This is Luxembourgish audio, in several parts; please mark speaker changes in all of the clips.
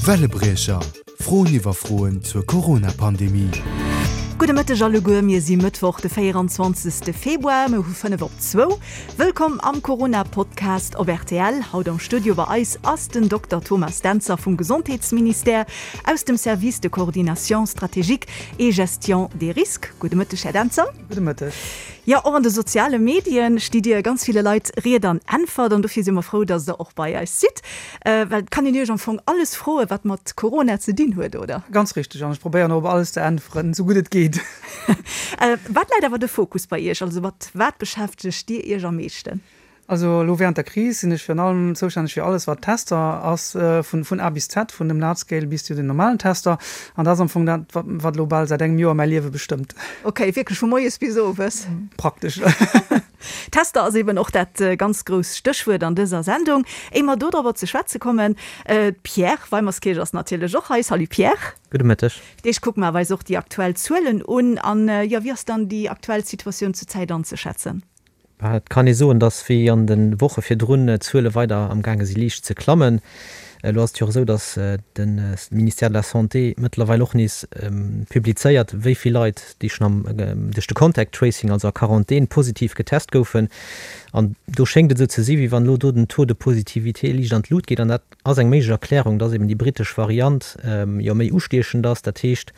Speaker 1: Wellebriecher, Froen iwwer Froen zur Corona-Pandemie.
Speaker 2: Gudde Mëtteg alleguer, mir si Mëttwoch de 24. Februar, mir hu 5 op zwou. Wëllkomm am Corona-Podcast op rtl. Haut am Studio bei eis ass den Dokter Thomas Dentzer vum Gesondheetsministère aus dem Service de coordination stratégique et gestion des risques. Gudde Mëtteg, Här Dentzer.
Speaker 3: Gudde Mëtteg.
Speaker 2: Jo, och an de soziale Medien stitt Dir ganz ville Leit Ried an Äntwert an dofir si mer frou, dass Der och bei eis sidd. Well et kann een Iech am Fong alles froen, wat mat Corona ze dinn huet, oder?
Speaker 3: Ganz richteg, an ech probéieren och op alles ze äntweren, esou gutt et geet.
Speaker 2: Wat läit awer de Fokus bei Iech? Also mat wat beschäftegt Dir Iech am meeschten?
Speaker 3: Also elo während der Kris sinn ech virun allem zoustänneg fir alles wat Tester ass, vun vun A bis Z, vun dem Large Scale bis zu den normalen Tester. An dat ass am Fong dat, wat wat elo bal säit engem Joer mäi Liewe bestëmmt.
Speaker 2: Ok, wierklech vu moies bis owes?
Speaker 3: Praktesch.
Speaker 2: Tester ass eben och dat ganz grousst Stéchwuert an dëser Sendung. Éier mer dodrobber ze schwätze kommen, d'Pierre Weimerskirch ass natierlech och hei. Salut Pierre.
Speaker 4: Gudde Mëtteg.
Speaker 2: Fir d'éischt kucke mer awer eis och déi aktuell Zuelen un. An jo, wéi ass dann déi aktuell Situatioun zur Zäit anzeschätzen?
Speaker 4: Et kann ee soen, datt wéi an de Woche virdrun d'Zuele weider am gaange si liicht ze klammen. Elo ass et jo och esou, datt de Ministère de la Santé mëttlerweil och nees publizéiert, wéi vill Leit, déi schonn am duerch de Contact Tracing, also a Quarantän, positiv getest goufen. An do schéngt et esou ze si wéi wann elo do den Taux de positivité liicht an d'Lut geet. An dat ass eng méiglech Erklärung, dass eben déi brittesch Variant jo méi ustiechend ass. Dat heescht,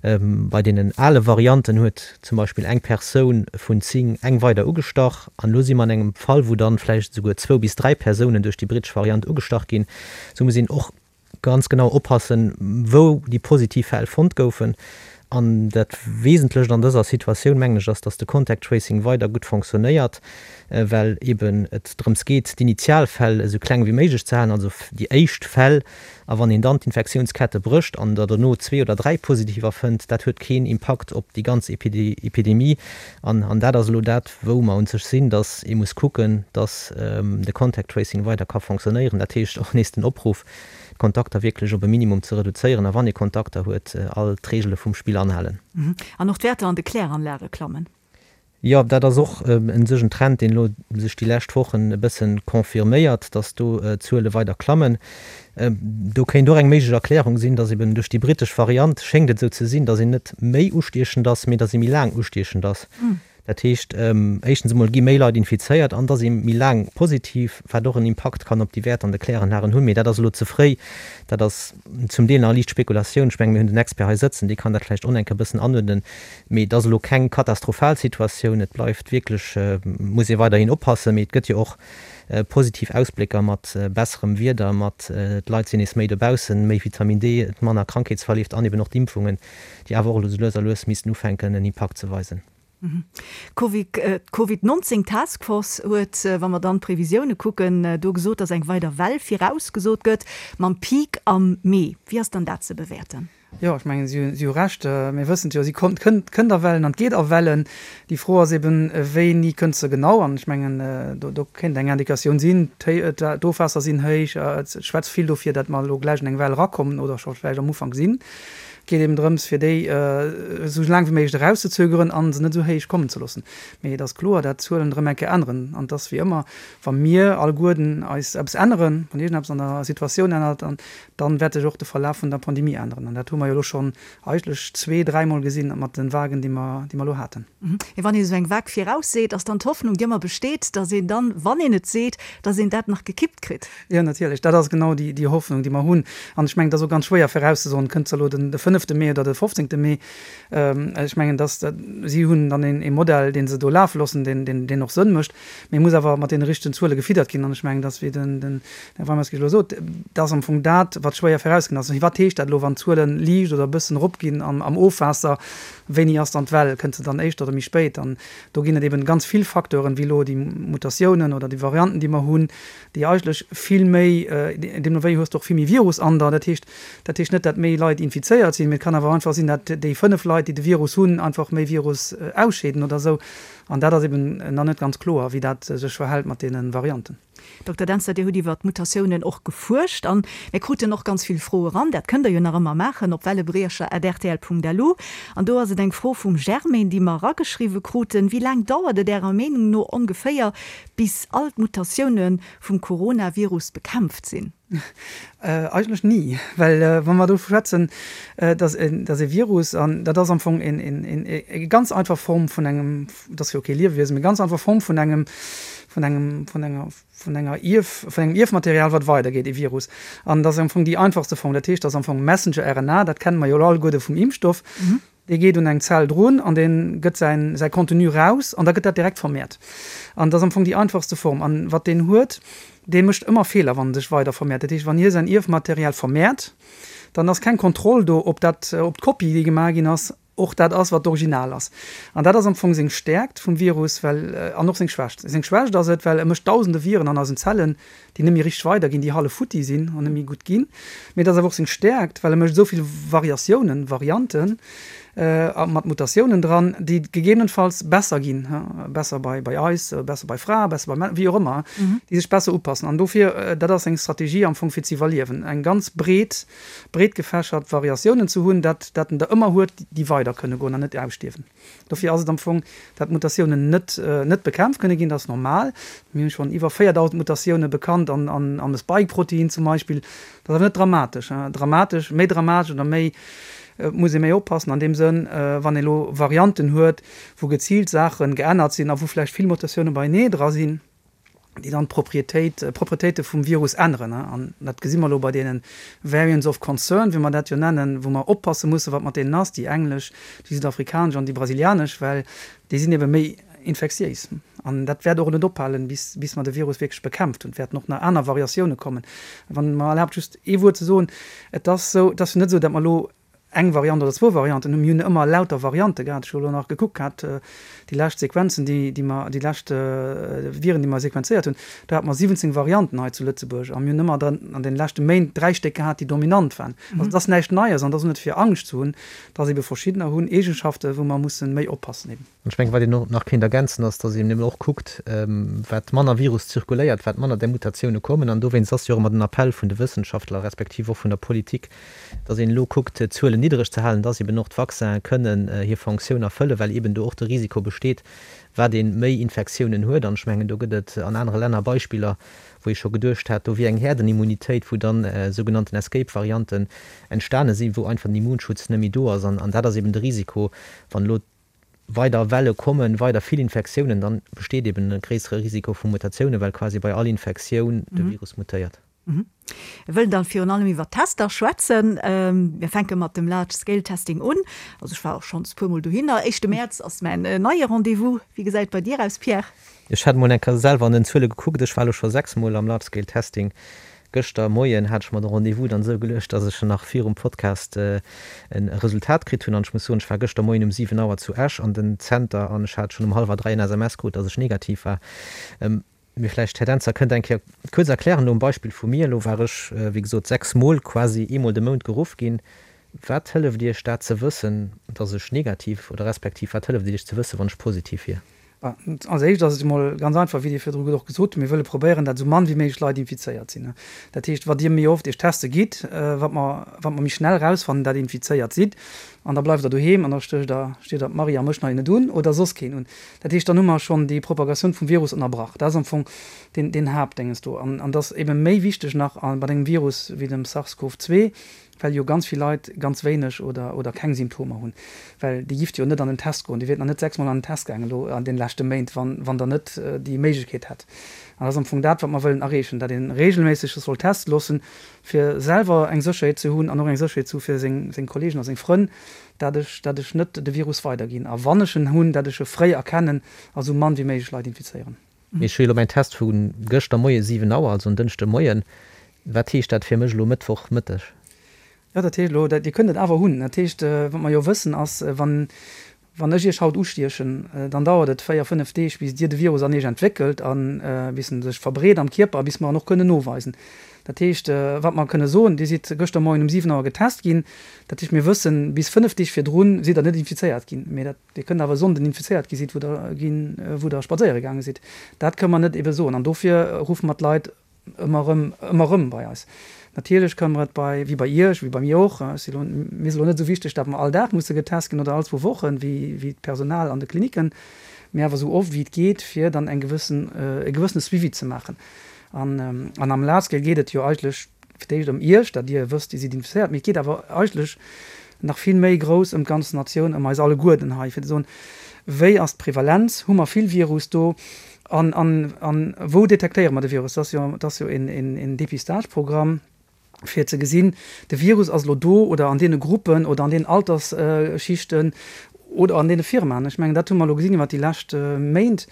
Speaker 4: bei deenen ale Varianten huet zum Beispill eng Persoun vun 10 eng weider ugestach. An elo si mer an engem Fall, wou dann vläicht esouguer zwou bis dräi Persounen duerch déi brittesch Variant ugestach ginn. Esou muss een och ganz genau oppassen, wou déi positiv Fäll fonnt goufen. An dat Wesentlecht an dëser Situatioun, mengen ech, ass, dass de Contact Tracing weider gutt fonctionnéiert, well eeben et drëms geet, d'Initialfäll esou kleng wéi méiglech ze halen, also déi éischt Fäll. A wann een dann d'Infektiounskette brécht an der dono zwee oder dräi Positiver fënnt, dat huet keen Impakt op déi ganz Epidemie. An dat ass elo dat, wou mer un sech sinn, dass ee muss kucken, dass de Contact Tracing weider ka fonctionnéieren. Dat heescht och nees den Opruff, d'Kontakter wierklech op e Minimum ze reduzéieren a wann ee Kontakter huet, all d'Reegele vum Spill anhalen.
Speaker 2: An och d'Wäerter an de Kläranlage klammen.
Speaker 4: Jo, dat ass och un sech en Trend, deen elo sech déi lescht Wochen e bësse confirméiert, dass do d'Zuele weider klammen. Do kéint och eng méiglech Erklärung sinn, dass eben duerch déi brittesch Variant schéngt et esou ze sinn, dass een net méi ustiechend ass, mee dass ee méi laang ustiechend ass. Dat heescht, éischtens emol gi méi Leit infizéiert an da si méi laang positiv, wat och en Impakt kann op déi Wäerter an de Kläranlagen hunn. Mee dat ass elo ze fréi. Dat ass zum Deel nach liicht Spekulatioun. Ech mengen, mir hunn den Expert hei sëtzen, dee kann dat vläicht och nach eng Kéier e bëssen anuerdnen. Mee et ass elo keng katastrophal Situatioun. Et bleift wierklech, muss ee weiderhin oppassen. Mee et gëtt jo och positiv Ausblécker mat besserem Wieder, mat d'Leit sinn nees méi dobaussen, méi Vitamin D, manner Krankheetsverleeft an eben och d'Impfungen, déi awer och elo sou lues a lues missten ufänken en Impakt ze weisen.
Speaker 2: D'Covid 19 Task Force huet, wa mer dann d'Previsioune kucken, do gesot, datt eng weider Well virausgesot gëtt, mam Peak am Mee. Wéi ass dann dat ze bewäerten?
Speaker 3: Jo, ech mengen, si hu Recht. Mir wëssen et jo, si kommt, kënnt, kënnt a Wellen an et geet a Wellen. Déi Fro ass eben, wéini kënnt se genau? An ech mengen, do, do kéint eng Indikatioun sinn, d'Ofwaasser sinn héich, et schwätzt vill dofir, datt mer elo gläich an eng Well erakommen oder scho vläicht am Ufank sinn. Et geet eben drëms, fir déi esou laang wéi méiglech erauszezögeren a se net esou héich kommen ze loossen. Mee et ass kloer, dat d'Zuelen erëm eng Kéier änneren. An et ass wéi ëmmer, wa mir alleguerten eis eppes änneren, wann iergendeppes an der Situatioun ännert, dann wäert sech och de Verlaf vun der Pandemie änneren. An dat hu mer jo elo schonn eigentlech zwee-, dräimol gesinn mat de Vagen, déi mer, déi mer elo haten.
Speaker 2: Mee wann een esou eng Vague virausseet, ass dann d'Hoffnung, déi ëmmer besteet, datt een dann, wann een et seet, datt een dat nach gekippt kritt?
Speaker 3: Jo, natierlech. Dat ass genau déi, déi Hoffnung, déi mer hunn. An ech mengen, et ass och ganz schwéier virauszesoen, kënnt se elo den, de fënnefte Mee oder de fofzéngte Mee. Ech mengen, dass, si hunn dann een, ee Modell, dee se do lafe loossen, deen, deen, deen och Sënn mécht. Mee e muss awer mat deene richtegen Zuele gefiddert ginn. An ech mengen, dass, wéi den, den Här Weimerskirch elo sot, dat ass am Fong dat, wat schwéier virausginn ass. Wat heescht dat elo, wann d'Zuele liicht oder e bëssen eropginn am, am Ofwaasser? Wéini ass dann d'Well? Kënnt se dann éischter oder méi spéit? An do ginn et eben ganz vill Facteuren, wéi elo déi Mutatiounen oder déi Varianten, déi mer hunn, déi eigentlech vill méi, deemno wéi hues de och vill méi Virus an der. Dat heescht, dat heescht net, dat méi Leit infizéiert sinn, mee et kann awer einfach sinn, dat déi 5 Leit, déi de Virus hunn, einfach méi Virus ausscheeden oder esou. An dat ass eben nach net ganz kloer, wéi dat sech verhält mat deene Varianten.
Speaker 2: Dokter Dentzer, Dir hutt iwwer d'Mutatiounen och gefuerscht an mir kruten och ganz vill Froe ran. Dat kënnt Der jo nach ëmmer maachen op wellebriecher@rtl.lu. An do ass et eng Fro vum Germaine, déi mer erageschriwwe kruten, Wéi laang dauert et Ärer Meenung no ongeféier, bis all d'Mutatioune vum Coronavirus bekämpft sinn?
Speaker 3: Eigentlech ni, well wa mer do schwätzen, dass e Virus, an dat ass am Fong eng ganz einfach Form vun engem, dat ass jo kee Liewewiesen, mee ganz einfach Form vun engem, vun engem, vun enger, vun enger Ierf, vun engem Ierfmaterial, wat weidergeet, e Virus. An dat ass am Fong déi einfachste Form. Dat heescht, dat ass am Fong Messenger-RNA, dat kenne mer jo elo alleguerde vum Impfstoff. Dee geet un eng Zell drun an dee gëtt säin, säi Contenu raus an da gëtt dat direkt vermehrt. An dat ass am Fong déi einfachste Form. An wat deen huet, dee mécht ëmmer Feeler, wann en sech weider vermehrt. Dat heescht, wann hie säin Ierfmaterial vermehrt, dann ass keng Kontroll do, ob dat, ob d'Kopie, déi gemaach ginn ass, och dat ass, wat d'Original ass. An dat ass am Fong seng Stäerkt vum Virus, well, an och seng Schwächt. Seng Schwächt ass et, well e mécht dausende Viren an eisen Zellen, déi net méi richteg weiderginn, déi hallef futti sinn an net méi gutt ginn. Mee et ass awer och seng Stäerkt, well e mécht esou vill Variatiounen, Varianten, mat Mutatiounen dran, déi gegebenenfalls besser ginn, besser bei bei eis, besser bei Frae, besser bei Männer, wéi och ëmmer, déi sech besser upassen. An dofir, dat ass seng Strategie am Fong fir ze iwwerliewen, eng ganz breet, breet gefächert Variatiounen ze hunn, dat dat en der ëmmer huet, déi weider kënne goen an net ausstierwen. Dofir ass et am Fong, dat Mutatiounen net net bekämpft kënne ginn, dat ass normal. Mir hunn schonn iwwer 4.000 Mutatioune bekannt an an am Spike-Protein zum Beispill. Dat ass awer net dramatesch. Dramatesch, méi dramatesch oder méi, et muss ee méi oppassen an deem Sënn, wann ee lo Varianten huet, wou geziilt Saache geännert sinn a wou vläicht vill Mutatioune beienee dra sinn. déi dann d'Proprietéit, d'Proprietéite vum Virus änneren. An dat gesi mer elo bei deene Variants of Concern, wéi mer dat jo nennen, wou mer oppasse mussen, wat mat deenen ass, déi englesch, déi südafrikanesch an déi brasilianesch, well déi sinn ebe méi infektiéis. An dat wäert och net ophalen, bis, bis mer de Virus wierklech bekämpft hunn. Et wäerten och nach aner Variatioune kommen. Wann Der mer erlaabt, just ee Wuert ze soen, Et ass esou, et ass jo net esou, datt mer elo eng Variant oder zwou Varianten hunn. Mir hunn ëmmer lauter Variante gehat. Ech hu elo nach gekuckt gehat, déi lescht Sequenzen, déi, déi mer, déi lescht Viren, déi mer sequenzéiert hunn, do hate mer 17 Varianten hei zu Lëtzebuerg a mir hunn ëmmer dann an deene leschte Méint dräi Stéck gehat, déi dominant waren. Also et ass näischt Neies an et ass och net fir Angscht ze hunn, dass ebe verschiddener hunn Eegenschaften, wou mer musse méi oppassen eben.
Speaker 4: An ech mengen, wat een och nach kéint ergänzen, ass, dass een eben och kuckt, wat manner Virus zirkuléiert, wat manner där Mutatioune kommen. An dowéinst ass jo och ëmmer den Appell vun de Wëssenschaftler respektiv och vun der Politik, dass een elo kuckt, d'Zuelen niddereg ze halen, dass eben och d'Vaccinen kënnen hir Fonctioun erfëllen, well eben do och de Risiko besteet, wat ee méi Infektiounen huet. An ech mengen, do gëtt et an anere Länner Beispiller, wou ee scho geduecht hat, do wier eng Herdenimmunitéit, wou dann sougenannten Escape-Varianten entstane sinn, wou einfach den Immunschutz net méi do ass. An dat ass eben de Risiko, wann elo weider Welle kommen, weider vill Infektiounen, dann besteet eben e gréissere Risiko vu Mutatiounen, well quasi bei all Infektioun de Virus mutéiert.
Speaker 2: Mir wëllen dann virun allem iwwer d'Tester schwätzen. Mir fänke mat dem Large Scale Testing un. Also ech war och schonns puer mol dohinner. Éischte Mäerz ass mäin neie Rendez-vous. Wéi gesäit et bei dir aus, Pierre?
Speaker 4: Ech hat mol eng Kéier selwer an den Zuele gekuckt. Ech war elo scho 6 mol am Large Scale Testing. Gëschter Moien hat ech mer de Rendez-vous dann esou geluecht, dass ech nach virum Podcast e Resultat kritt hunn. An ech muss soen, ech war gëschter Moien um 7 Auer zu Esch an den Zenter an ech hat schonn um hallwer 3 en SMS krut, dass ech negativ war. Mee vläicht, Här Dentzer, kënnt Der eng Kéier kuerz erklären, elo um Beispill vu mir, elo war ech, wéi gesot, 6 Mol quasi eemol de Mount geruff ginn. Wat hëlleft Iech dat ze wëssen, dass ech negativ, oder respektiv wat hëlleft et Iech ze wëssen, wann ech positiv wier?
Speaker 3: Als éischt ass et emol ganz einfach, wéi Dir virdru och gesot hutt, mir wëlle probéieren, dat esou mann wéi méiglech Leit infizéiert sinn. Dat heescht, wat Dir méi oft Iech teste gitt, wat mer, wat mer méi schnell erausfannen, dat Dir infizéiert sidd. An da bleift Der doheem an da stécht Der, steet Der d'Marie a mech nach net un oder soss keen un. Dat heescht, dann hu mer schonn déi Propagatioun vum Virus ënnerbrach. Dat ass am Fong deen, deen Haaptdénges do. An, an dat ass ebe méi wichteg nach bei engem Virus wéi dem SARS-CoV-2, well jo ganz vill Leit ganz wéineg oder oder keng Symptomer hunn, well déi gifft jo net an den Test goen, déi wiert nach net 6 mol an den Test gaangen elo an den leschte Méint, wann wann der net déi Méiglechkeet hätt. An dat ass am Fong dat, wat mer wëllen erreechen, dat ee regelméisseg sech soll teste loossen, fir selwer eng Sécherheet ze hunn an och eng Sécherheet ze hu fir seng seng Kollegen a seng Frënn, dat ech dat ech net de Virus weiderginn a wann ech en hunn, dat ech e fréi erkennen a sou mann wéi méiglech Leit infizéieren.
Speaker 4: Mee ech hu jo elo mäin Test vu gëschter Moie 7 Auer, also en Dënschde Moien. Wat heescht dat fir mech elo Mëttwoch Mëtteg?
Speaker 3: Jo, dat heescht elo, Dir kënnt et awer hunn. Dat heescht, wat mer jo wëssen ass, wann, Wann ech Iech haut ustiechen, dann dauert et 4, 5 Deeg, bis Dir de Virus an Iech entwéckelt a bis en sech verbreet am Kierper a bis mer en och kënnen noweisen. Dat heescht, wat mer kënne soen, Dir sidd gëschter Moien um 7 Auer getest ginn. Dat heescht, mir wëssen, bis 5 Deeg virdrun sidd Der net infizéiert ginn. Mee dat, Dir kënnt awer e Sonnden infizéiert gi sidd, wou Der ginn, wou Der spadséiere gaange sidd. Dat kënne mer net ebe soen. An dofir ruffe mer d'Leit Ëmmer erëm, ëmmer erëm bei eis. Natierlech kënne mer et bei, wéi bei Iech, wéi bei mir och, ech si lo, mir ass elo net esou wichteg, datt mer all Dag musse getest ginn oder all zwou Wochen, wéi, wéi d'Personal an de Klinicken, mee awer esou oft wéi et geet, fir dann eng gewëssen, e gewëssene Suivi ze maachen. An, an am Large Scale geet et jo eigentlech fir d'éischt ëm Iech, datt Dir wësst, Dir sidd infizéiert, mee et geet awer eigentlech nach vill méi grouss ëm d'ganz Natioun, ëm eis alleguerten hei, fir ze soen, Wéi ass d'Prevalenz? Hu mer vill Virus do? An, an, an wou detektéiere mer de Virus? Dat ass jo, dat ass jo een, een, een Dépistage-Programm, fir ze gesinn, de Virus ass elo do oder an deene Gruppen oder an deenen Altersschichten oder an deene Firmaen. Ech mengen, dat hu mer elo gesinn iwwert déi lescht Méint.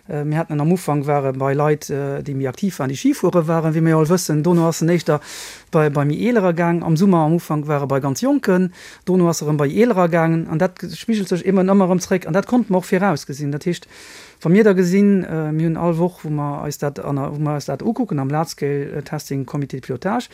Speaker 3: Mir haten en am Ufank war e bei Leit, déi méi aktiv waren, déi Ski fuere waren, wéi mir jo all wëssen. Dono ass en éischter bei, bei méi Eelerer gaang. Am Summer am Ufank war e bei ganz Jonken. Dono ass e erëm bei Eelerer gaangen. An dat spigelt sech eben ëmmer erëm zréck. An dat konnte mer och virausgesinn. Dat heescht, Wa mir da gesinn, mir hunn all Woch, wou mer eis dat, wou mer eis dat ukucken am Large Scale Testing Comité de Pilotage,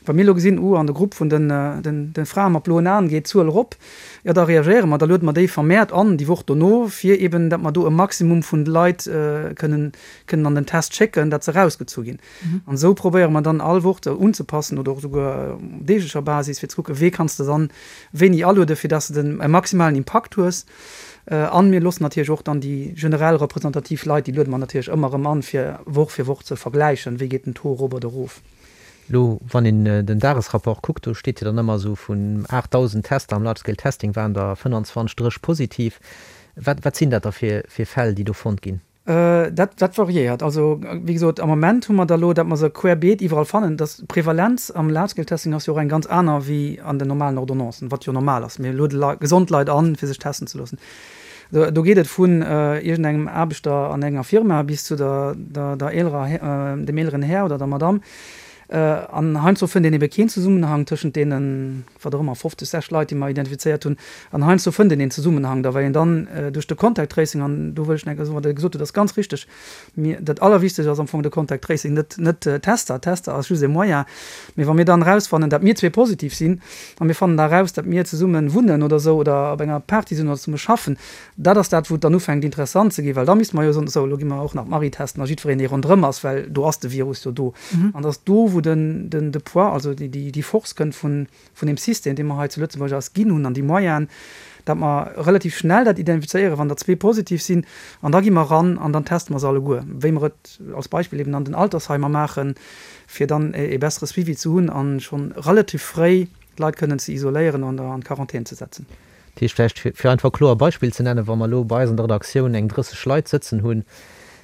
Speaker 3: wa mir elo gesinn, uh, an de Grupp vun den, den, de Frae mat bloen Aen geet d'Zuel erop, jo da reagéiere mer, da luede mer déi vermehrt an déi Woch dono, fir eben, datt mer do e Maximum vun de Leit kënnen, kënnen an den Test schécken, datt se erausgezu ginn. An esou probéiere mer dann all Woch se unzepassen oder och esouguer op deeglecher Basis, fir ze kucken, wee kanns de dann wéini alueden, fir datt s de den, e maximalen Impakt hues. An mir loossen natierlech och dann déi generell representativ Leit, déi luede mer natierlech ëmmer erëm an, fir Woch fir Woch ze vergläichen, wéi geet den Taux erop oder erof.
Speaker 4: Elo, wann een den Dagesrapport kuckt, do steet jo dann ëmmer esou, vun 8.000 Tester am Large Scale Testing waren der 25, 30 positiv. Wat, wat sinn dat da fir, fir Fäll, déi do fonnt ginn?
Speaker 3: Dat, dat variéiert. Also, wéi gesot, am Moment hu mer der elo, datt mer se querbeet iwwerall fannen. Dass d'Prevalenz am Large-Scale-Testing ass jo och eng ganz aner wéi an den normalen Ordonnancen, wat jo normal ass. Mir luede Leit, gesond Leit an, fir sech testen ze loossen. Do, do geet et vun iergendengem Aarbechter an enger Firma bis zu der, der, der eelerer, dem eeleren Här oder der Madamm. An heiansdo fënnt een ebe keen Zesummenhang tëschent deenen, wat och ëmmer, 50, 60 Leit, déi mer identifizéiert hunn. An heiansdo fënnt een een Zesummenhang da, well een dann duerch de Contact Tracing, an do wëll ech nach eng Kéier soen, wat Der gesot hutt, ass ganz richteg, mir, dat Allerwichtegst ass am Fong de Contact Tracing, net, net Tester. Tester ass just e Moyen. Mee wa mir dann erausfannen, datt mir zwee positiv sinn, a mir fannen da eraus, datt mir zesumme wunnen oder esou oder op enger Party sinn oder zesumme schaffen, Dat ass dat, wou et dann ufänkt interessant ze ginn, well da misste mer jo soen, esou, elo gi mer och nach d'Marie testen a jiddwereen, dee ronderëm ass, well do ass de Virus jo do. An et ass do, wou den, den, de Poids, also déi, déi, déi Force kënnt vun, vun deem System, dee mer hei zu Lëtzebuerg eis ginn hunn an déi Moyenen, datt mer relativ schnell dat identifizéieren, wann der zwee positiv sinn. An da gi mer eran an dann teste mer se alleguer, wéi mer et als Beispill eben an den Altersheimer maachen, fir dann e bessere Suivi ze hunn a schonn relativ fréi d'Leit kënnen ze isoléieren an an d'Quarantän ze setzen.
Speaker 4: Dat heescht, vläicht fir einfach e kloer Beispill ze nennen, Wa mer elo bei eis an der Redaktioun eng 30 Leit sëtzen hunn,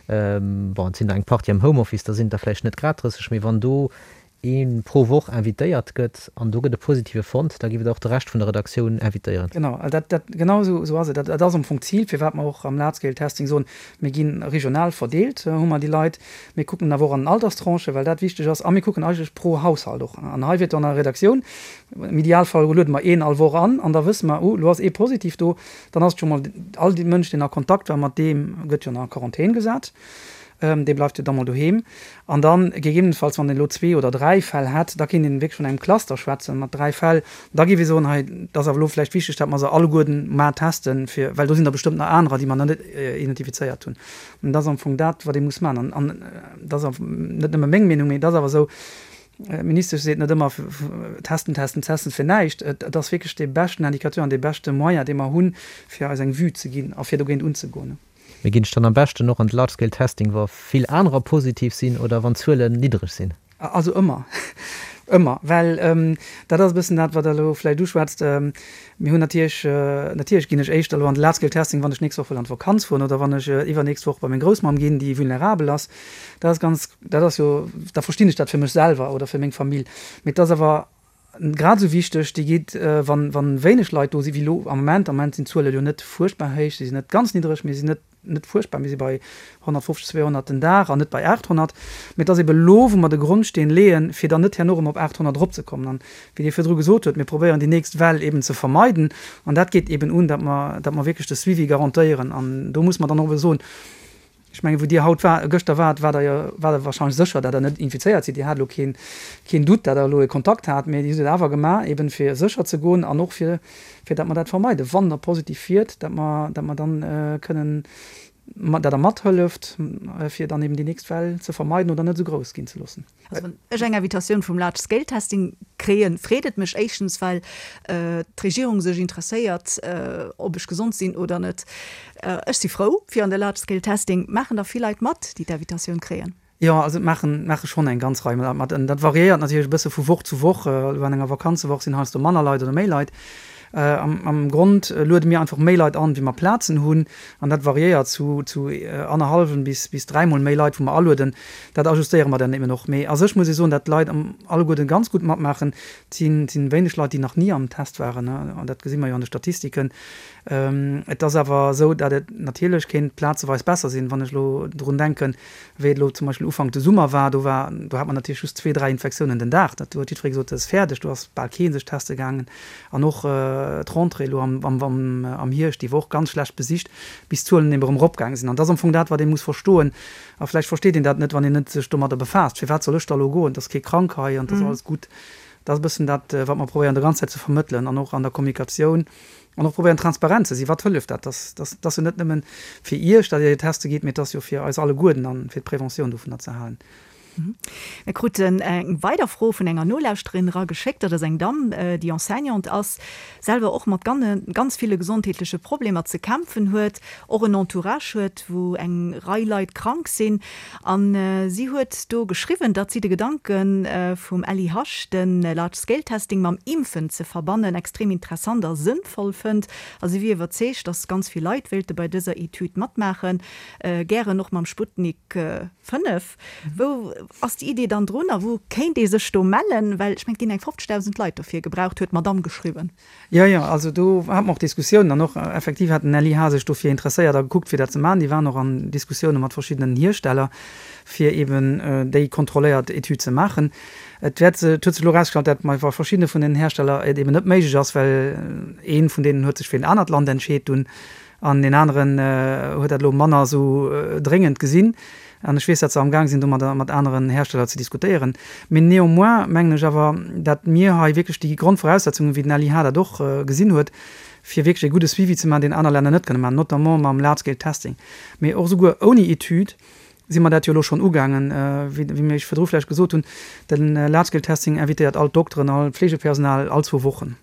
Speaker 4: bon, et sinn der eng Partie am Homeoffice, da sinn et der vläicht net grad 30, mee wann do ee pro Woch invitéiert gëtt an do gëtt e Positive fonnt, da géif et och de Rescht vun der Redaktioun invitéieren.
Speaker 3: Genau, dat, dat, genau esou, esou ass et. Dat, dat ass am Fong d'Zil, firwat mer och am Large Scale Testing soen, mir gi regional verdeelt, hu mer déi Leit. Mir kucken awer och an den Alterstranchen, well dat wichteg ass, a mir kucken eigentlech pro Haushalt och. An hei wier et an der Redaktioun, Am Idealfall luede mer een all Woch an an da wësse mer, oh, elo ass ee positiv do. Dann ass et scho mol, all dee Mënsch, deen a Kontakt war mat deem, gëtt jo an Quarantän gesat. Dee bleift jo da mol doheem. An dann gegebenenfalls, wann een elo zwee oder dräi Fäll hätt, da kéint een wierklech vun engem Cluster schwätzen mat dräi Fäll. Da géif ee soen, hei, et ass awer elo vläicht wichteg, datt mer se alleguerten mar testen, fir, well do sinn der bestëmmt nach anerer, déi mer nach net identifizéiert hunn. An dat ass am Fong dat, wat ee muss maachen. An dat ass net nëmme meng Meenung, mee et ass awer esou, D'Ministesch seet net ëmmer, testen, testen, testen fir näischt. Et ass wierklech dee beschten Indicateur an dee beschte Moyen, dee mer hunn, fir eis eng Vue ze ginn a fir dogéint unzegoen.
Speaker 4: Mee ginn ech dann am beschten och an de Large Scale Testing, wa vill anerer positiv sinn oder wann d'Zuelen niddereg sinn?
Speaker 3: Also ëmmer, ëmmer, well dat ass e bëssen dat, wat Der elo vläicht uschwätzt. Mir hunn natierlech, natierlech ginn ech éischter elo an de Large Scale Testing, wann ech d'nächst Woch wëll an d'Vakanz fueren oder wann ech iwwernächst Woch bei meng Groussmamm ginn, déi vulnerabel ass. Dat ass ganz, dat ass jo, da verstinn ech dat fir mech selwer oder fir meng Famill. Mee et ass awer grad esou wichteg, déi geet, wann, wann wéineg Leit do sinn, wéi elo am Moment. Am Moment sinn d'Zuele jo net fuerchtbar héich, si sinn net ganz niddereg, mee si sinn net. net fuerchtbar, mir si bei 150, 200 den Dag an net bei 800. Mee et ass ebe lo, wou mer de Grondsteen leeën, fir dann net herno erëm op 800 eropzekommen. An wéi Dir virdru gesot hutt, mir probéieren déi nächst Well eben ze vermeiden. An dat geet eben un, datt mer, datt mer wierklech de Suivi garantéieren. An do muss mer dann och ebe soen, ech mengen, wou Dir haut war, gëschter waart, waart Der jo, waart Der wahrscheinlech sécher, datt Der net infizéiert sidd. Dir hat elo keen, keen Doute, datt Der elo e Kontakt hat, mee Dir hutt et awer gemaach, eben fir sécher ze goen an och fir, fir datt mer dat vermeiden, wann Der positiv wiert, datt mer, datt mer dann kënnen dat Der mathëlleft, fir dann eben déi nächst Well ze vermeiden oder net esou grouss ginn ze loossen.
Speaker 2: Also wann ech eng Invitatioun vum Large Scale Testing kréien, freet et mech éischtens, well d'Regierung sech interesséiert, ob ech gesond sinn oder net. Ech si frou fir an de Large Scale Testing. Maachen der vill Leit mat, déi d'Invitatioun kréien?
Speaker 3: Jo, also et maachen, maache schonn eng ganz Rei Leit mat. Dat variéiert natierlech e bësse vu Woch zu Woch. Elo an enger Vakanzewoch sinn heiansdo manner Leit oder méi Leit. Am Grond luede mir einfach méi Leit an, wéi mer Plazen hunn. An dat variéiert zu zu annerhallwen bis bis dräimol méi Leit, wou mer alueden. Dat ajustéiere mer dann eben och. Mee a sech muss ee soen, datt d'Leit am alleguerten ganz gutt matmaachen. Et sinn et sinn wéineg Leit, déi nach ni am Test waren, an dat gesi mer jo an de Statistiken. Et ass awer esou, datt et natierlech kéint plazeweis besser sinn, wann ech elo drun denken, Wéi et elo zum Beispill Ufank de Summer war, do war, do hat mer natierlech just zwee, dräi Infektiounen den Dag. Dat huet jiddweree gesot, dat ass fäerdeg, do ass bal kee sech teste gaangen. An och d'Rentrée elo am, am, am Hierscht, déi war och ganz schlecht besicht, bis d'Zuelen eben erëm eropgaange sinn. An dat ass am Fong dat, wat ee muss verstoen. A vläicht versteet een dat net, wann een net sech domadder befaasst, Firwat soll ech da elo goen? Et ass kee krank hei an et ass alles gutt. Dat ass e bëssen dat, wat mer probéieren de ganz Zäit ze vermëttelen an och an der Kommunikatioun. An och probéieren transparent ze sinn. Wat hëlleft dat? Dat ass jo net nëmmen fir Iech, datt Dir teste gitt, mee et ass jo fir eis alleguerten an fir d'Preventioun dovunner ze halen.
Speaker 2: Mir kruten eng weider Fro vun enger Nolauschterin erageschéckt. Dat ass eng Damm, déi Enseignante ass, selwer och mat ganz ville gesondheetleche Problemer ze kämpfen huet, och en Entourage huet, wou eng Rei Leit krank sinn. A si huet do geschriwwen, datt si de Gedanke vum LIH, de Large Scale Testing mam Impfen ze verbannen, extrem interessant a sënnvoll fënnt. A si wier iwwerzeegt, datt ganz vill Leit wéilte bei dëser Etüd matmaachen, gären och mam Sputnik 5. Wou ass déi Idee dann drun a wou kéint ee sech do mellen? Well ech mengen, et ginn eng 50.000 Leit dofir gebraucht, huet d'Madamm geschriwwen.
Speaker 3: Jo, jo, also do hate mer och Diskussiounen an och effektiv hat den LIH sech dofir interesséiert a gekuckt, fir dat ze maachen. Déi waren och an Diskussioune mat verschiddenen Hiersteller, fir eeben déi kontrolléiert Etüd ze maachen. Et wäert, et huet sech elo erausgestallt, dat bei verschiddene vun den Hersteller et eeben net méiglech ass, well ee vun deenen huet sech fir en anert Land entscheet dunn An deen aneren huet dat elo manner esou dréngend gesinn. An ech weess, datt se amgaang sinn, do mat aneren Hersteller ze diskutéieren. Mee néanmoins mengen ech awer, datt mir hei wierklech déi Grondvoraussetzungen, wéi den LIH dat och gesinn huet, fir wierklech e gudde Suivi ze maachen, deen aner Länner net kënne maachen, notamment mam Large-Scale Testing. Mee och esouguer ouni Etüd si mer dat jo elo schonn ugaangen, wéi mir Iech virdru vläicht gesot hunn, de Large-Scale Testing invitéiert all d'Dokteren, all d'Fleegepersonal all zwou Wochen.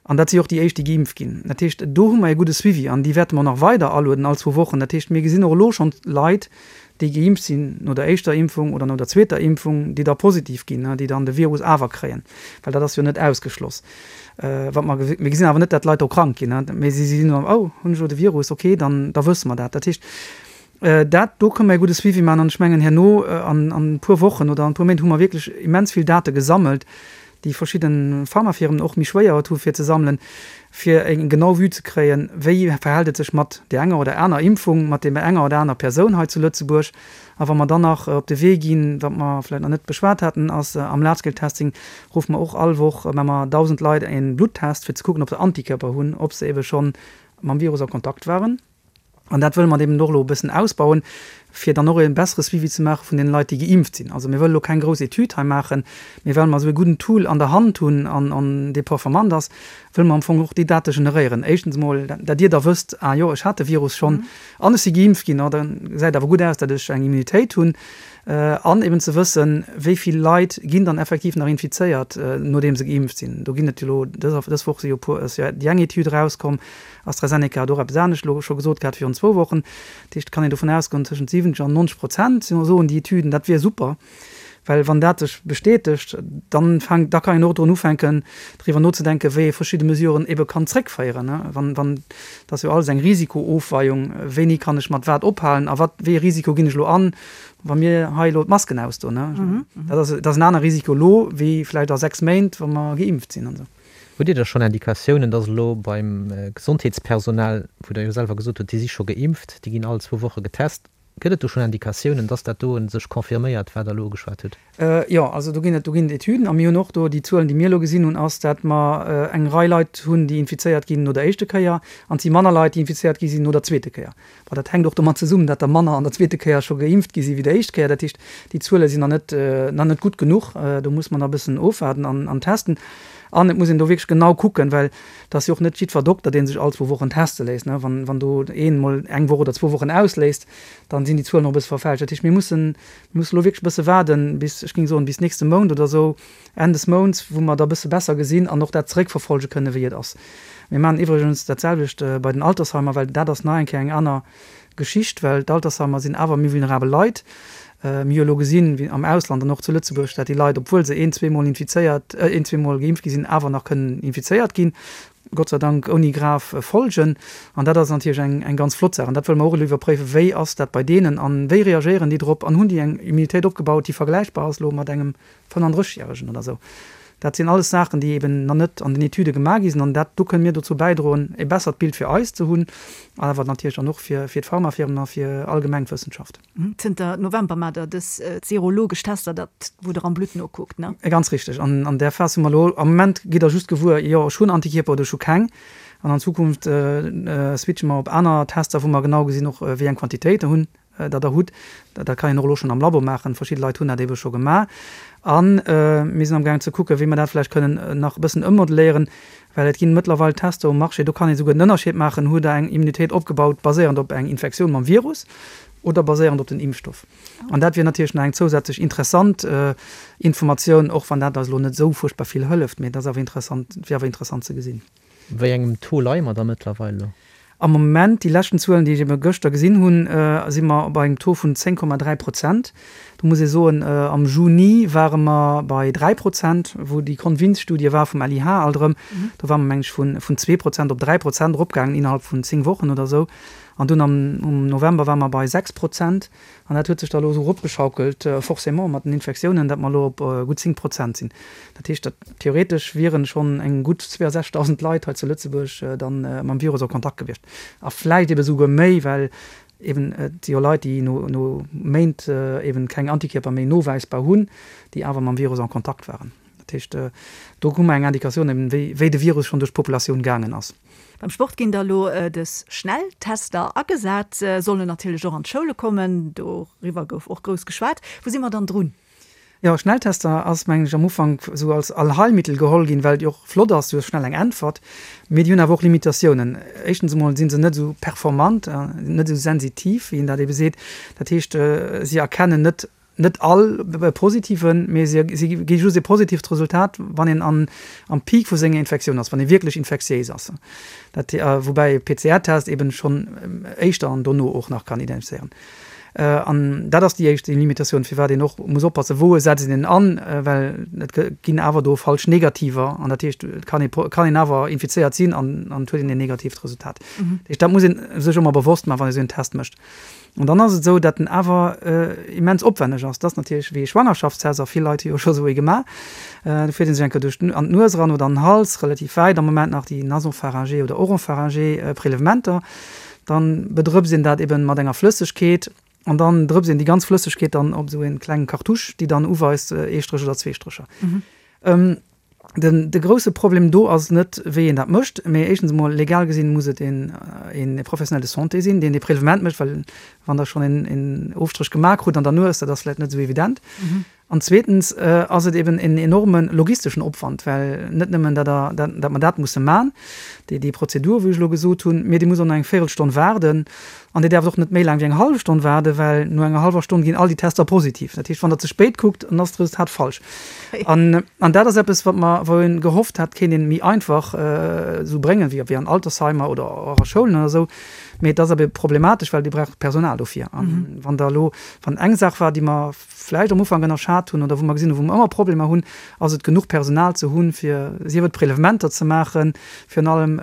Speaker 3: An dat si och déi éischt, déi geimpft ginn. Dat heescht, do hu mer e gudde Suivi an déi wäerte mer nach weider alueden all zwou Wochen. Dat heescht, mir gesinn och elo schonn Leit, déi geimpft sinn no der éischter Impfung oder no der zweeter Impfung, déi da positiv ginn, déi dann de Virus awer kréien, well dat ass jo net ausgeschloss. Wat mer, mir gesinn awer net, dat d'Leit do krank ginn, mee si sinn dann, oh, hunn ech elo de Virus, okay, dann da wësse mer dat. Dat heescht, dat do kënne mer e gudde Suivi maachen an ech mengen, herno an e puer Wochen oder an e puer Méint hu mer wierklech immens vill Date gesammelt, déi verschidde Pharmafirmen och méi schwéier et hu fir ze sammelen, fir eng genau Vue ze kréien, wéi verhält et sech mat där enger oder aner Impfung, mat deem enger oder aner Persoun hei zu Lëtzebuerg. A wa mer dann nach op de Wee ginn, wat mer vläicht nach net beschwat haten, ass am Large-Scale-Testing ruffe mer och all Woch, maache mer 1.000 Leit e Bluttest, fir ze kucken, ob se Antikörper hunn, ob se ebe schonn mam Virus a Kontakt waren. An dat wëlle mer eben och elo e bëssen ausbauen, fir dann och e bessere Suivi ze maache vun deene Leit, déi geimpft sinn. Also mir wëlle elo keng grouss Etüd hei maachen, mee well mer esou e gudden Tool an der Hand hunn an an dee performant ass, wëlle mer am Fong och déi Date generéieren. Éischtens emol, dat Dir da wësst, ah jo, ech hat de Virus schonn an ech si geimpft ginn, oh da gesäit awer gutt aus, datt ech eng Immunitéit hunn. An eben ze wëssen, wéi vill Leit ginn dann effektiv nach infizéiert, nodeem se geimpft sinn. Do ginn et jo elo, dës Woch si jo e puer, ass jo déi eng Etüd erauskomm, AstraZeneca hat och eppes anescht elo scho gesot gehat virun zwou Wochen. Dat heescht, et kann een dovun ausgoen, tëschent 70 an 90 Prozent soen déi Etüden, dat wier super. Well wann dat sech bestätegt, dann fänkt, da kann een och drun ufänken, driwwer nozedenken, wéi ee verschidde Mesuren ebe kann zréckféieren. Wann, wann, dat ass jo alles eng Risikoofweiung, wéini kann ech mat wat ophalen a wat, wéi ee Risiko ginn ech elo an, wa mir hei elo d'Masken ausdoen. Dat ass, dat ass en aner Risiko elo wéi vläicht a 6 Méint, wa mer geimpft sinn an esou.
Speaker 4: Hutt Dir da schonn Indikatiounen, dass elo beim Gesondheetspersonal, wou Der jo selwer gesot hutt, déi si scho geimpft, déi ginn all zwou Woche getest, gëtt et do schonn Indikatiounen, dass dat do sech confirméiert, wat Der elo ugeschwat hutt?
Speaker 3: Jo, also do ginn et, do ginn et Etüden a mir hunn och do déi Zuelen, déi mir elo gesinn hunn, ass, dat mer eng Rei Leit hunn, déi infizéiert ginn no der éischte Kéier an et si manner Leit, déi infizéiert gi sinn no der zweete Kéier. Bon, dat hänkt och domat zesummen, dat der manner an der zweete Kéier scho geimpft gi si wéi der éischt Kéier. Dat heescht, déi Zuele sinn nach net, nach net gutt genuch. Do muss mer nach e bëssen ofwaarden an, an testen. An et muss een do wierklech genau kucken, well et ass jo och net jiddwer Dokter, dee sech all zwou Wochen teste léisst. Wann, wann do een emol eng Woch oder zwou Wochen ausléisst, dann sinn déi Zuelen och e bësse verfälscht. Dat heescht, mir mussen, mir mussen elo wierklech e bësse waarden, bis, ech géing soen, bis nächste Mount oder esou, Enn des Mounts, wou mer da bësse besser gesinn an och dat zeréckverfolge kënnen, wéi et ass. Mir maachen iwwregens dat selwecht bei den Altersheimer, well dat ass nach eng Kéier eng aner Geschicht, well d'Altersheimer sinn awer méi vulnerabel Leit. Mir hu elo gesinn, wéi am Ausland an och zu Lëtzebuerg, dat déi Leit, obwuel se een, zweemol infizéiert, een, zweemol geimpft gi sinn, awer nach kënnen infizéiert ginn, Gott sei Dank ouni grav Folgen. An dat ass natierlech eng, eng ganz flott Saach. An dat wëlle mer och elo iwwerpréiwen, wéi ass dat bei deenen a wéi reagéieren déi drop an hunn déi eng Immunitéit opgebaut, déi vergläichbar ass elo mat engem 35 järegen oder esou. Dat sinn alles Saachen, déi eben nach net an den Etüde gemaach gi sinn. An dat do kënne mir dozou bäidroen, e bessert Bild fir eis ze hunn, awer natierlech dann och fir d'Pharmafirmen a fir allgemeng d'Wëssenschaft.
Speaker 2: Zënter November maacht Der dës serologesch Tester, dat wou Der am Blutt nokuckt, ne?
Speaker 3: Ganz richteg. An an där Phas hu mer elo, am Moment gitt Der just gewuer, jo ech hunn Antikierper oder ech hu keng. An an Zukunft switche mer op aner Tester, wou mer genau gesinn och, wéi eng Quantitéit Der hunn. dat Der hutt, dat kann een och elo schonn am Labo maachen, verschidde Leit hunn dat eebe scho gemaach. A mir sinn amgaangen ze kucken, wéi mer dat vläicht kënnen nach e bëssen ëmmodelléieren, well et ginn mëttlerweil Tester um Marché, do kann ee souguer den Ënnerscheed maachen, Hutt Der eng Immunitéit opgebaut baséierend op eng Infektioun mam Virus oder baséierend op den Impfstoff? An dat wier natierlech nach eng zousätzlech interessant Informatioun, och wann dat eis elo net esou fuerchtbar vill hëlleft, mee et ass awer interessant, wier awer interessant ze gesinn.
Speaker 4: Wéi engem Taux leie mer da mëttlerweil elo?
Speaker 3: Am Moment, déi leschten Zuelen, déi ech ebe gëschter gesinn hunn, si mer bei engem Taux vun 10,3 Prozent. Do muss ee soen, am Juni ware mer bei 3 Prozent, wou déi Convince-Studie war vum LIH alt erëm. Do ware mer, meng ech, vun 2 Prozent op 3 Prozent eropgaangen innerhalb vun 10 Wochen oder esou. An dunn am November ware mer bei 6 Prozent. An dat huet sech da elo esou eropgeschaukelt, forcément mat den Infektiounen, datt mer elo op gutt 10 Prozent sinn. Dat heescht, datt theoretesch wieren schonn eng gutt 62.000 Leit hei zu Lëtzebuerg dann mam Virus a Kontakt gewiescht. A vläicht ebe souguer méi, well eben et si jo Leit, déi no no Méint eben keng Antikierper méi nowäisbar hunn, déi awer mam Virus en Kontakt waren. Dat heescht, do hu mer eng Indikatioun eben, wéi wéi de Virus schonn duerch d'Populatioun gaangen ass.
Speaker 2: Beim Sport ginn da lo dës Schnelltester agesat, sollen natierlech och an d'Schoule kommen. Doriwwer gouf och grouss geschwat. Wou si mer dann drun?
Speaker 3: Jo, Schnelltester ass, mengen ech, am Ufank esou als Allheilmittel geholl ginn, well et jo och flott ass, du hues schnell eng Äntwert. Mee déi hunn awer och Limitatiounen. Éischtens emol si se net esou performant, net esou sensitiv, wéi een dat ebe seet. Dat heescht, si erkennen net Net all positiven, mee si gi just e positivt Resultat, wann een an am Peak vu senger Infektioun ass, wann ee wierklech infektiéis ass. Dat, woubäi e PCR-Test eben schonn éischter an dono och nach kann identifizéieren. An dat ass déi éischt Limitatioun, firwat een och muss oppassen, wou setzt een en an, well et ginn awer do falsch Negativer an dat heescht, et kann ee kann een awer infizéiert sinn an an et huet een en negatiivt Resultat. Dat heescht, dat muss ee sech ëmmer bewosst maachen, wann ee sou en Test mécht. An dann ass et esou, datt en awer immens opwänneg ass. Dat ass natierlech wéi e Schwangerschaftstest, a vill Leit hu jo scho esou ee gemaach. Do fiert ee sech eng Kéier duerch an d'Nues eran oder an den Hals, relativ wäit am Moment nach déi nasopharyngé oder oropharyngé Prélèvementer. Dann bedrëpst een dat eben mat enger Flëssegkeet an dann drëpst een déi ganz Flëssegkeet dann op esou ee klengen Cartouche, déi dann uweist, ee Stréch oder zwee Strécher. Den, de grousse Problem do ass net, wéi een dat mécht, mee éischtens emol, legal gesinn, muss et een, een Professionnel de santé sinn, deen dee Prélevement mécht, well wann Der schonn een, een Ofstréch gemaach krut an der Nues, dat ass vläicht net esou evident. An zweetens ass et eben en enorme logisteschen Opwand, well net nëmmen, datt Der, dat, datt mer dat musse man, déi, déi Prozedur, wou ech elo gesot hunn, mee Dir musst och nach eng Véirelstonn waarden, An Dir däerft och net méi laang wéi eng hallef Stonn waarden, well no enger hallwer Stonn ginn all déi Tester positiv. Dat heescht, wann Der ze spéit kuckt, dann ass d'Resultat falsch. An, an dat ass eppes, wat mer, wou een gehofft hat, kéint een méi einfach esou bréngen, wéi, wéi an Altersheimer oder och a Schoulen oder esou. Mee et ass awer problematesch, well Dir braucht Personal dofir. An wann Der elo, wann eng Saach war, déi mer vläicht am Ufank ënnerschat hunn oder wou mer gesinn hunn, wou mer ëmmer Problemer hunn, ass et genuch Personal ze hunn, fir sief et Prélèvementer ze maachen, virun allem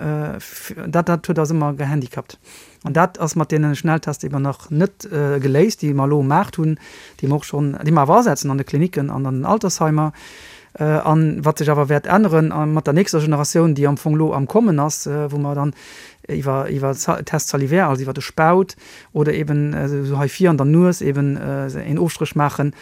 Speaker 3: dat, dat huet eis ëmmer gehandicapt. An dat ass mat deene Schnelltester eben nach net geléist, déi mer elo um Maart hunn, déi mer och schonn, déi mer awer asetzen an de Klinicken an an den Altersheimer. An wat sech awer wäert änneren mat der nächster Generatioun, déi am Fong elo am Kommen ass, wou mer dann iwwer iwwer Test salivaire, also iwwer de Spaut oder eben esou hei vir an der Nues eben een Ofstréch maachen,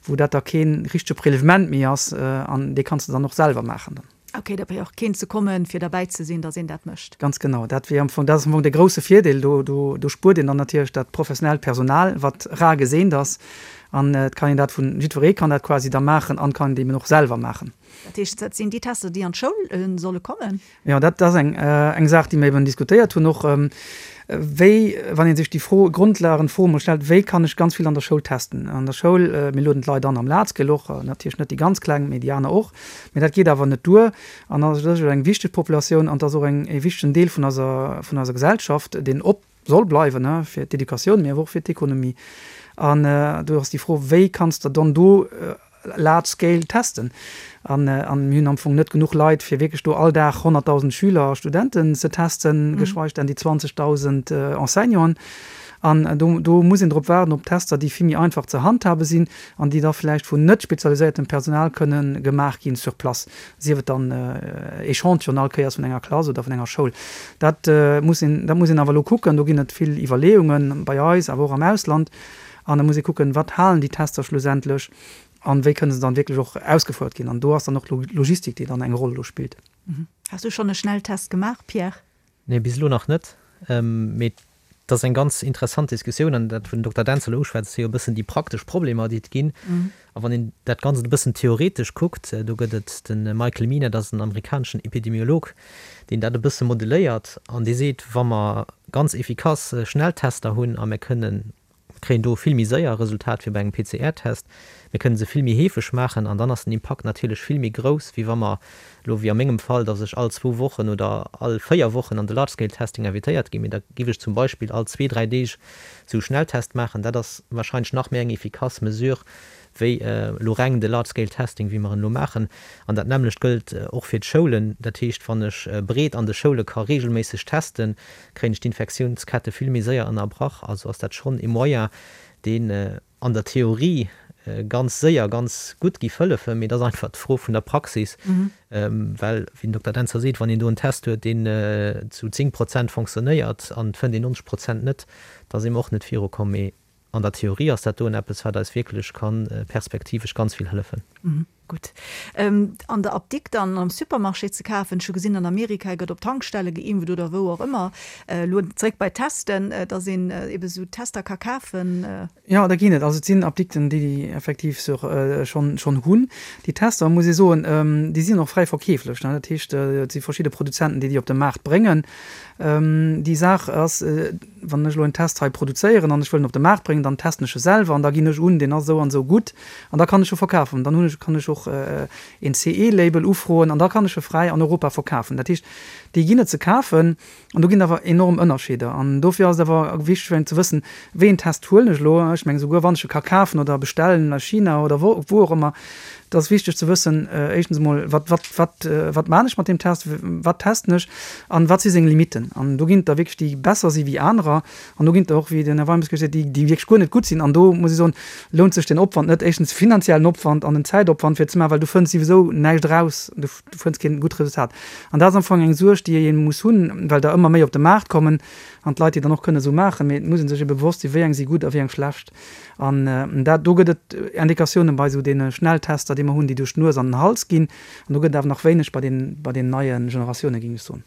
Speaker 3: wou dat da kee richtege Prélèvement méi ass an dee kanns de dann och selwer maachen dann.
Speaker 2: Ok, da brauch keen ze kommen, fir derbäi ze sinn, datt een dat mécht.
Speaker 3: Ganz genau, dat wier am Fong, dat ass am Fong dee grousse Virdeel. Do, do, do spuert een dann natierlech dat professionellt Personal, wat rar geseent ass. An et kann een dat vun, jiddweree kann dat quasi da maachen an kann et eben och selwer maachen.
Speaker 2: Dat heescht, dat sinn déi Tester, déi an d'Schoul solle kommen?
Speaker 3: Jo, dat ass eng, eng Saach, déi mir eben diskutéiert hunn och. Wéi, wann ee sech déi Fro, Grondlagenfro emol stellt, wéi kann ech ganz vill an der Schoul testen? An der Schoul, mir lueden d'Leit an am Large-Scale och, natierlech net déi ganz Kleng, mee déi aner och. Mee dat geet awer net duer. An dat ass eng wichteg Populatioun an dat ass och eng, e wichtegen Deel vun eiser, vun eiser Gesellschaft, deen op soll bleiwen, fir d'Educatioun, mee awer och fir d'Ekonomie. An do ass déi Fro, wéi kanns de dann do large scale testen? An mir hunn am Fong net genuch Leit, fir wierklech do all Dag 100.000 Schüler a Studenten ze testen, geschweig denn déi 20.000 Enseignanten. An do, do muss een drop waarden, op Tester, déi vill méi einfach ze handhabe sinn an déi da vläicht vun net spezialiséiertem Personal kënne gemaach ginn sur place, sief et dann Echantillon all Kéiers vun enger Klass oder vun enger Schoul. Dat muss een, dat muss een awer elo kucken. Do ginn et vill Iwwerleeungen bei eis, awer och am Ausland. An da muss ee kucken, wat halen déi Tester schlussendlech an wéi kënne se dann wierklech och ausgefouert ginn. An do ass dann och d'Logistik, déi dann eng Roll do spillt.
Speaker 2: Has du schonn e Schnelltest gemaach, Pierre?
Speaker 4: Nee, bis elo nach net. Mee et ass eng ganz interessant Diskussioun. An dat, wou den Dokter Dentz elo uschwätzt, si jo e bëssen déi praktesch Problemer, déi et ginn. A wann een dat Ganzt e bëssen theoretesch kuckt, do gëtt et de Michael Mina, dat ass en amerikaneschen Epidemiolog, deen dat e bësse modelléiert an dee seet, wa mer ganz efficace Schnelltester hunn a mir kënnen Mir kréien do vill méi séier e Resultat wéi bei engem PCR-Test. Mir kënnen se vill méi heefeg maachen an dann ass den Impakt natierlech vill méi grouss, wéi wa mer elo, wéi a mengem Fall, dass ech all zwou Wochen oder all véier Wochen an de Large-Scale-Testing invitéiert ginn. Mee da giff ech zum Beispill all zwee, dräi Deeg esou e Schnelltest maachen. Dat ass wahrscheinlech nach méi eng efficace Mesure wéi elo reng de Large-Scale-Testing, wéi mer en elo maachen. An dat nämmlecht gëllt och fir d'Schoulen. Dat heescht, wann ech breet an de Schoule ka reegelméisseg testen, kréien ech d'Infektiounskette vill méi séier ënnerbrach. Also ass dat schonn e Moyen, deen an der Theorie ganz séier ganz gutt giff hëllefen, mee et ass einfach d'Fro vun der Praxis, well, wéi den Dokter Dentzer seet, wann een do en Test huet, deen zu 10 Prozent fonctionnéiert an et fënnt een 90 Prozent net, da si mer och net virukomm. Mee an der Theorie ass dat doen eppes, wat eis wierklech ka perspektivesch ganz vill hëllefen.
Speaker 2: Gutt. An der Apdikt an am Supermarché ze kafen. Ech hu gesinn, an Amerika gëtt op Tankstelle geimpft oder wou och ëmmer. Elo zréck bei d'Testen, dass een ebe sou Tester ka kafen.
Speaker 3: Jo, da ginn et. Also et sinn Apdikten, déi déi effektiv sur schonn schonn hunn. Déi Tester, muss ee soen, déi sinn och fräi verkeeflech. Dat heescht, et si verschidde Produzenten, déi déi op de Maart bréngen. Déi Saach ass, wann ech elo en Test hei produzéieren an ech wëll en op de Maart bréngen, dann testen ech e selwer an da ginn ech un, deen ass esou an esou gutt an da kann ech e verkafen. Dann hunn ech, kann ech och een CE-Label ufroen an da kann ech e fräi an Europa verkafen. Dat heescht, déi ginn et ze kafen an do ginn et awer enorm Ënnerscheeder. An dofir ass et awer wichteg fir een ze wëssen, wéi een Test huelen ech elo. Ech mengen, esouguer wann ech e ka kafen oder bestellen a China oder wou och ëmmer, Et ass wichteg ze wëssen, éischtens emol, wat, wat, wat, wat maan ech mat deem Test, wat testen ech an wat si seng Limitten. An do ginn et der wierklech, déi besser si wéi anerer an do ginn et der och, wéi den Här Weimes gesot huet, déi, déi wierklech guer net gutt sinn. An do muss ech soen, lount sech den Opwand net, éischtens de finanziellen Opwand an den Zäitopwand fir ze maachen, well du fënns souwisou näischt eraus, du, du fënns keen gutt Resultat. An dat ass am Fong eng Suerg, déi ee muss hunn, well der ëmmer méi op de Maart kommen an d'Leit déi dann och kënne esou maachen. Mee et muss ee sech ebe bewosst sinn, wéi eng si gutt a wéi eng schlecht. An dat, do gëtt et Indikatiounen bei esou deene Schnelltester, déi mer hunn, déi duerch d'Nues an den Hals ginn. An do gëtt et awer nach wéineg bei den, bei den neie Generatiounen, géing ech soen.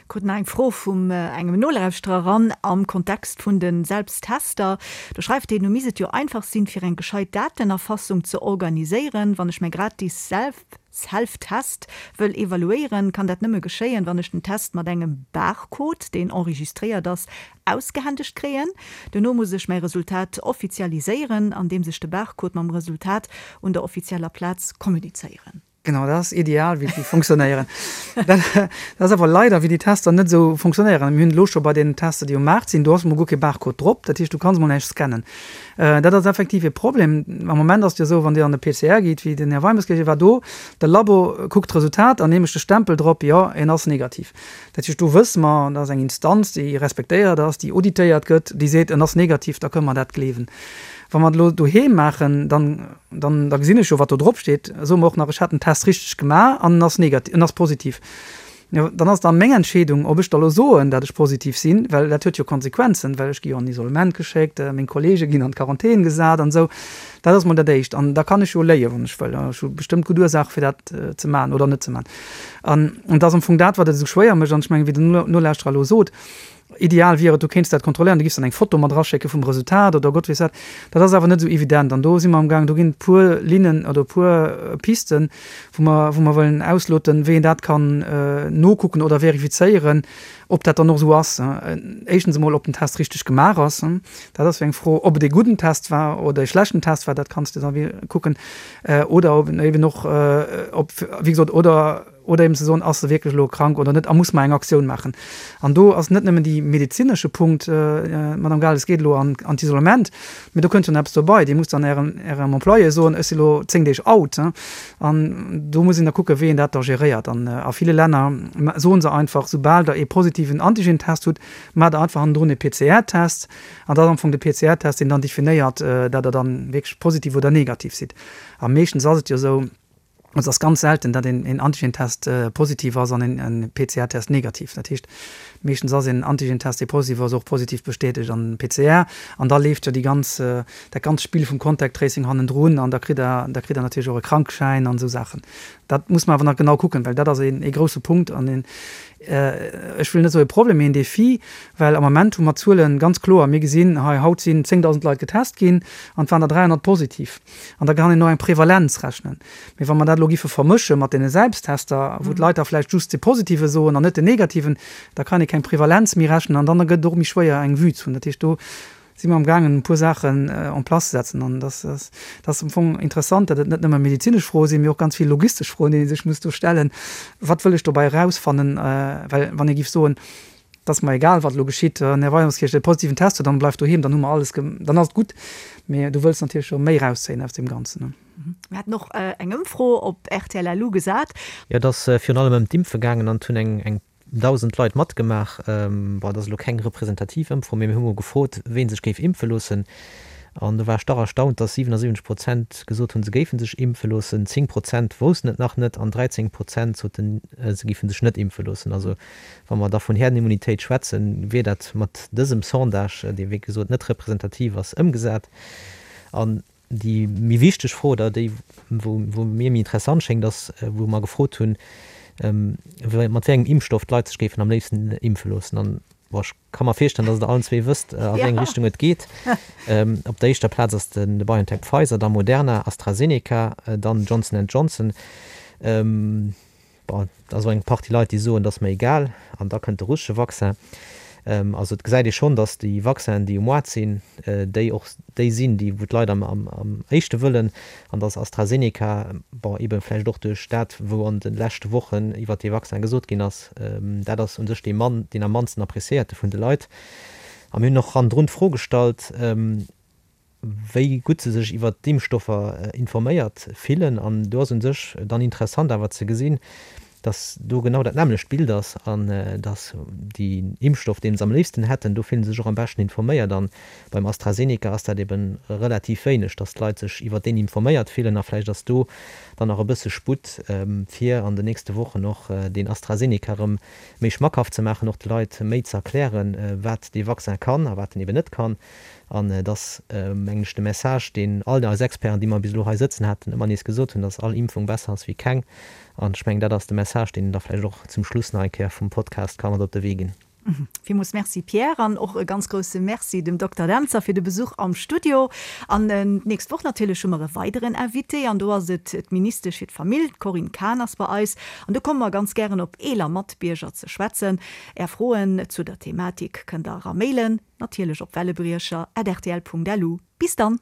Speaker 2: Krut nach eng Fro vum engem Nolauschterer eran am Kontext vun de Selbsttester. Do schreift hien, Nu misst et jo einfach sinn, fir eng gescheit Datenerfassung ze organiséieren. Wann ech mäi gratis Self-Test wëll evaluéieren, kann dat nëmme geschéien, wann ech den Test mat engem Barcode, deen enregistréiert ass, ausgehändegt kréien. Duerno muss ech mäi Resultat offizialiséieren, andeems ech de Barcode mam Resultat un der offizieller Plaz kommunizéieren.
Speaker 3: Genau, dat ass ideal, wéi déi funktionéieren. Dat ass awer leider, wéi déi Tester net esou funktionéieren. Mir hunn elo scho bei deenen Tester, déi um Maart sinn, do ass emol guer kee Barcode drop. Dat heescht, du kanns emol näischt scannen. Dat ass effektiv e Problem. Am Moment ass et jo esou, wann Dir an de PCR gitt, wéi den Här Weimes gesot huet, war do, de Labo kuckt d'Resultat an hie mécht de Stempel drop, jo, en ass negativ. Dat heescht, do wësse mer, dat ass eng Instanz, déi respektéiert ass, déi auditéiert gëtt, déi seet, en ass negativ, da kënne mer dat gleewen. Wa mer et elo doheem maachen, dann, dann, da gesinn ech jo, wat do drop steet. Soe mer och nach, ech hat den Test richteg gemaach an en ass negativ, en ass positiv. Jo, dann ass et dann meng Entscheedung, ob ech da elo soen, dat ech positiv sinn, well dat huet jo Konsequenzen, well ech gi jo an Isolement geschéckt, meng Kollege ginn an d'Quarantän gesat an esou. Dat ass mol dat Éischt. An da kann ech jo léien, wann ech wëll. Ech hu bestëmmt gutt Ursaache fir dat ze maachen oder net ze maachen. An et ass am Fong dat, wat et esou schwéier mécht. An ech mengen, wéi den Nolauschterer elo sot, Ideal wier et, du kéints dat kontrolléieren, du giffs dann eng Foto mat eraschécke vum Resultat oder Gott weess wat. Dat ass awer net esou evident an do si mer amgaang, do ginn et puer Linnen oder e puer Pisten, wou mer, wou mer wëllen ausloten, wéi een dat kann nokucken oder verifizéieren, ob dat dann och esou ass. Éischtens emol, ob den Test richteg gemaach ass, dat ass jo eng Fro, ob et ee gudden Test war oder ee schlechten Test war, dat kanns de da kucken oder ob eben och, ob, wéi gesot, oder, Oder eben ze soen, ass e wierklech elo krank oder net a muss mer eng Aktioun maachen. An do ass net nëmmen déi medezinesche Punkt, Madame Gales, geet elo an d'Isolement, mee do kënnt jo nach eppes dobei. Dir musst dann Ärem, Ärem Employé soen, ech si lo 10 Deeg out. An do muss een da kucken, wéi een dat da geréiert. An a ville Länner soe se einfach, soubal Der ee positiven Antigentest hutt, maacht Der einfach hannendrun ee PCR-Test. An dat ass am Fong de PCR-Test, deen dann definéiert, dat Der dann wierklech positiv oder negativ sidd. A meeschtens ass et jo esou, Et ass ganz selten, datt een Antigentest positiv ass an en PCR-Test negativ. Dat heescht, meeschtens ass een Antigentest, dee positiv ass, och positiv bestätegt an PCR. An da leeft jo déi ganz, dat ganzt Spill vum Contact Tracing hannendrun an da kritt Der, da kritt Der natierlech och e Krankschäin an esou Saachen. Dat muss mer awer nach genau kucken, well dat ass een ee grousse Punkt an een, ech wëll net soe Problem, mee een Defi, well am Ament hu mer d'Zuele ganz kloer. Mir gesinn hei, haut sinn 10.000 Leit getest ginn an et waren der 300 positiv. An da kann een och eng Prevalenz rechnen. Mee wa mer dat elo giffe vermësche mat deene Selbsttester, wou d'Leit da vläicht just de Positive soen an net den Negativen, da kann ee keng Prevalenz méi rechnen an dann gëtt et och méi schwéier eng Vue ze hunn. Dat heescht, do si mer amgaangen e puer Saachen en place ze setzen. An dat ass am Fong interessant, datt et net nëmme medezinesch Froe sinn, mee och ganz vill logistesch Froen, déi ee sech muss do stellen, Wat wëll ech dobäi erausfannen? Well wann ee giff soen, Et ass mer egal, wat elo geschitt. Den Här Weimerskirch, de positiven Test huet, dann bleift doheem, dann hu mer alles, dann ass et gutt. Mee du wëlls natierlech jo méi erauszéien aus deem Ganzen.
Speaker 2: Mir haten och eng Ëmfro op rtl LU gesat.
Speaker 4: Jo, et ass virun allem ëm d'Impfe gaangen an et hunn eng eng 1.000 Leit matgemaach. Bon, et ass elo keng representativ Ëmfro, mee mir hu mol gefrot, ween sech géif impfe loossen. An do war ech dach erstaunt, dass 77 Prozent gesot hunn, se géife sech impfe loossen, 10 Prozent woussten et nach net an 13 Prozent soten, se géife sech net impfe loossen. Also Wa mer da vun Herdenimmunitéit schwätzen, wier dat mat dësem Sondage, dee wéi gesot net representativ ass, ëmgesat. An déi méi wichteg Fro, oder déi wou mir méi interessant schéngt, ass, wou mer gefrot hunn, mat wéi engem Impfstoff d'Leit sech géifen am léifsten impfe loossen. An, bon, ech ka mer virstellen, datt Der allen zwee wësst, a wéi eng Richtung et geet. Op der éischter Plaz ass de BioNTech-Pfizer, da Moderna, AstraZeneca, dann Johnson and Johnson. Bon, et ass och eng Partie Leit, déi soen, et ass mer egal, an da kënnt de russesche Vaccin. Also et gesäit ee schonn, datt déi Vaccinen, déi um Moart sinn, déi och déi sinn, déi wou d'Leit am am éischte wëllen, an datt AstraZeneca, bon, eebe vläicht och duerch dat, wou an de leschte Wochen iwwert dee Vaccin gesot ginn ass, dat ass u sech dee mann, deen am mannsten appreciéierte vun de Leit. A mir hunn och hannendrun d'Fro gestallt, wéi gutt se sech iwwert d'Impfstoffer informéiert fillen. An do ass u sech dann interessant awer ze gesinn, datt do genau dat nämmlecht Bild ass an datt déi Impfstoff, dee se am léifsten hätten, do fillen se sech och am beschten informéiert. An beim AstraZeneca ass dat ebe relativ wéineg, datt d'Leit sech iwwert deen informéiert fillen. A vläicht ass do dann nach e bësse Sputt, fir an den nächste Wochen och deen AstraZeneca erëm méi schmackhaft ze maachen, och de Leit méi ze erklären, wat dee Vaccin kann a wat en eben net kann. An et ass, mengen ech, de Message, deen all eis Experten, déi mer bis elo hei sëtzen haten, ëmmer nees gesot hunn, dass all Impfung besser ass wéi keng. An ech mengen, dat ass de Message, deen een da vläicht och zum Schluss nach eng Kéier vum Podcast ka mat op de Wee ginn.
Speaker 2: Villmools Merci Pierre an och e ganz grousse Merci dem Dokter Dentzer fir de Besuch am Studio. An d'nächst Woch natierlech hu mer e weideren Invité an do ass et d'Ministesch fir d'Famill, d'Corinne Cahen ass bei eis. An do komme mer ganz gären op eeler Matbierger ze schwätzen. Är Froen zu der Thematik kënnt der era mailen. Natierlech op wellebriecher at rtl.lu. Bis dann!